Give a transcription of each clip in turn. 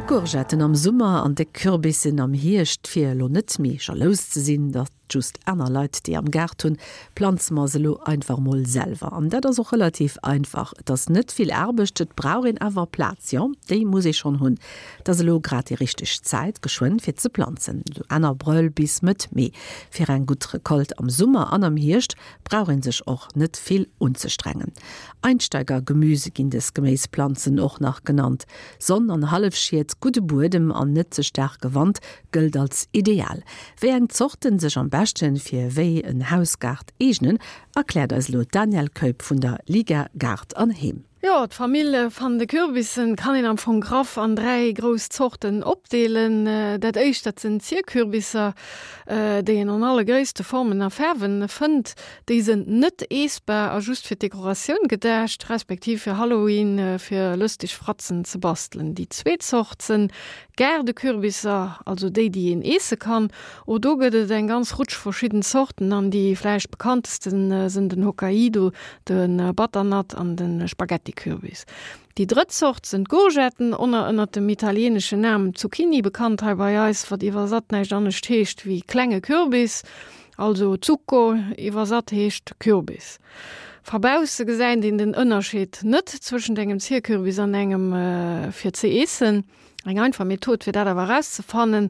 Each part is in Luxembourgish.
Déck Courgetten am Summer an déck Kürbissen am Hierscht. Fir elo net méi jalous ze sinn, datt just aner Leit déi am Gaart hunn, planze mer se elo einfach mol selwer. An dat ass och relativ einfach. Et ass net vill Aarbecht, et brauch een awer Plaz. Jo, déi muss ee schonn hunn. Et ass elo grad déi richteg Zäit, geschwënn fir ze planzen, esou Enn Abrëll bis Mëtt Mee. Fir eng gutt Recolte am Summer an am Hierscht brauch een sech och net vill unzestrengen. Einsteigergemüse ginn des Geméisplanzen och nach genannt. Sonn an Hallefschied, gudde Buedem an net ze staarke Wand gëllt als ideal. Wéi eng Zorten sech am beschten fir wéi en Hausgaart eegnen, erkläert eis elo d'Danièle Keup vun der Liga Gaart an Heem. Jo, d'Famill van de Kürbissen kann een am Fong graff an 3 grouss Zorten opdeelen. Dat éischt, dat sënn Zierkürbisser, déi een an alle Gréisste, Formen a Faarwen fënnt. Déi sënn net eessbar a just fir d'Dekoratioun gedacht, respektiv fir Halloween fir lëstig Fratzen ze bastelen. Déi zweet Zort sënn Gaardekürbisser, also déi, déi een eesse kann. Och do gëtt et eng ganz Rutsch verschidden Zorten an déi vläicht bekanntesten sënn den Hokkaido, de Butternut an de Spaghettikürbis. Déi drëtt Zort sënn d'Courgetten, oner ënnert dem italieneschen Nam Zucchini bekannt hei bei eis, wat iwwersatt näischt anescht heescht wéi klenge Kürbis, also Zucco iwwersatt heescht Kürbis. Va bausse gesäit een den Ënnerscheed net zwëschent engem Zierkürbis an engem fir ze eessen. Eng einfach Method fir dat awer erauszefannen,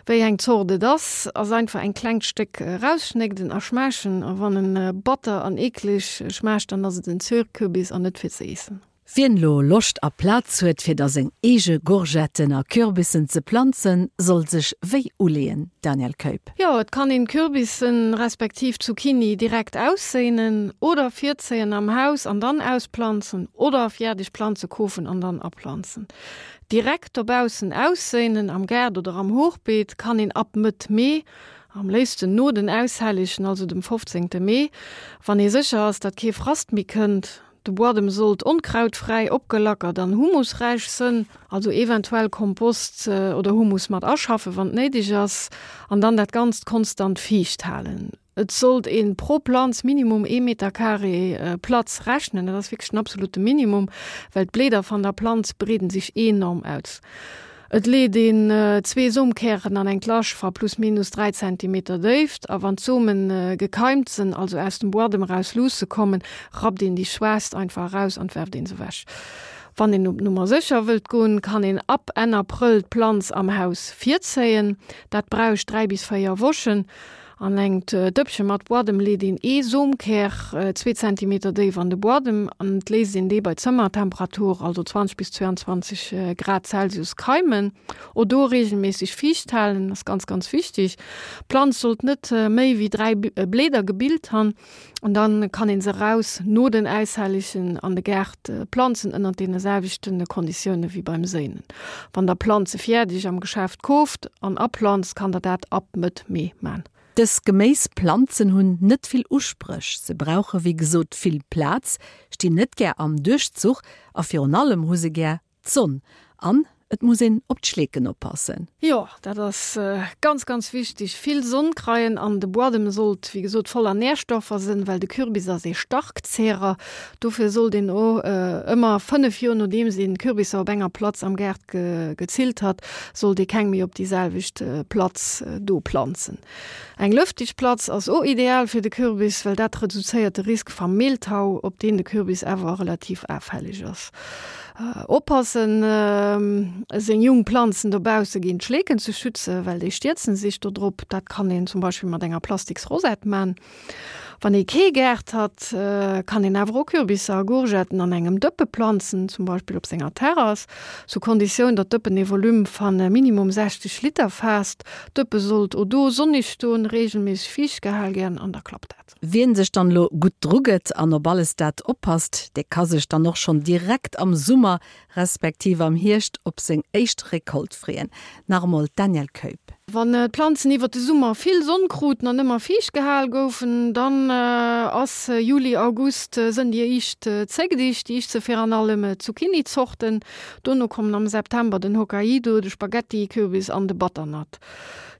wéi eng Zort et ass, ass einfach eng klengt Stéck erausschnégden a schmaachen. A wann en batter an eekleg schmaacht, dann ass et en Zierkürbis an net fir ze eessen. Wien lo Loscht a Plaz huet fir da seng eege Gourgetten a Kürbissen ze planzen, soll sech wéi uleeën, Danièle Keup? Jo, et kann een Kürbissen respektiv Zucchini direkt ausséinen oder virzéien am Haus an dann ausplanzen oder fiärdeg Planze kofen an dann aplanzen. Direkt dobaussen ausséinen, am Gaart oder am Hochbeet, kann een ab Mëtt Mee, am léifsten no den Aushellegen, also dem 15. Mee, wann ee sécher ass, datt kee Frast méi kënnt. De Buadem sollt onkrautfräi, opgelackert an humusräich sënn, also eventuell Kompost oder Humus mat aschaffen, wann et néideg ass, an dann dat Ganzt konstant fiicht halen. Et sollt een pro Planz minimum ee Meter Carré Platz rechnen, dat ass wierklech den absolute Minimum, well d'Bleeder van der Planz breeden sich enorm aus. Et leet een zwee Somkären an eng Lasch va plus minus 3 Zentimeter Déift a wann d'Somen gekeimt sen, also aus dem Buadem eraus luusse kommen, rappt een déi schwaachst einfach eraus an werft een se wech. Wann een op Nummer sécher wëllt goen, kann een ab Enn Aprëll d'Planz am Haus virzéien. Dat bräuch 3 bis 4 Wochen. An engt Dëppche mat Buadem leet een ee Somkär zwee Zentimeter déif an de Buadem an et léisst een dee bei Zëmmertemperatur, also 20 bis 22 Grad Celsius, keimen. O do regelméisseg fiicht halen ass ganz ganz wichteg. D'Planz sollt net méi wéi 3 Bläder gebilt han. An dann kann een se raus no den Äishelligen an de Gaart planzen ënnert deene selwechten Konditioune wéi beim Séinen. Wann der Planze fiärdeg am Geschäft kooft an aplanzt, kann der dat ab Mëtt Mee man. Dës Geméisplanzen hunn net vill Uspréch, se brauche wéi gesot vill Plaz, stinn net gär am Duerchzuch a virun allem hu se gär D'Sonn. An et muss een op d'Schleeken oppassen. Jo, dat ass ganz, ganz wichteg. Vill Sonn kreien an de Buadem sollt, wéi gesot, voller Nährstoffer sënn, well de Kürbis ass ee Starkzehrer. Dofir sollt een o ëmmer 5 Joer nodeems een Kürbisser op enger Platz am Gaart gezillt hat, sollt ee keng méi op déi selwecht Platz do planzen. Eng lëftig Platz ass o ideal fir de Kürbis, well dat reduzéiert de Risk vam Mehltau, op deen de Kürbis äwer relativ aafällig ass. Oppassen seng jung Planzen dobausse géint Schleeken ze schützen, well déi stierzen sich do drop. Dat kann een zum Beispill mat enger plastiks Rosette man. Wann ee kee Gaart hat, kann een awer och Kürbisser a Gourgetten an engem Dëppe planzen, zum Beispill op senger Terrass, sous Konditioun, datt d'Dëppen ee Volume van minimum 60 Liter faasst. D'Dëppe sollt o do sonnig stoen, regelméisseg fiicht gehal gern an da klappt dat. Wien sech dann elo gutt dru gëtt an op alles dat oppasst, dee ka sech dann och schonn direkt am Summer respektiv am Hierscht op seng éischt Recolte freeën. Nach emol d'Danièle Keup. Wann d'Planzen iwwer de Summer vill Sonn kruten an ëmmer fiicht gehal goufen, dann ass Juli, August sënn déi éischt Zéckdicht. Déi éischt se viraan allem Zucchini-Zorten. Dono kommen am September den Hokkaido, de Spaghetti-Kürbis an de Butternut.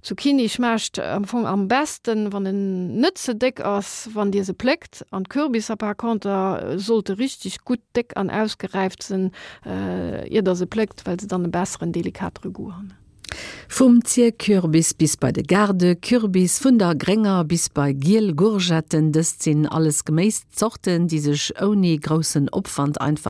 Zucchini schmaacht am Fong am besten, wann en net ze déck ass, wann dir se pléckt. An d'Kürbisser par conter sollte richteg gutt déck an ausgeräift sënn, ier der se pléckt, well se dann e besseren, delikatere Goût han. Vum Zierkürbis bis bei de Gaardekürbis, vun der grénger bis bei giel Gourgetten, dëst sinn alles Geméiszorten, déi sech ouni groussen Opwand einfach.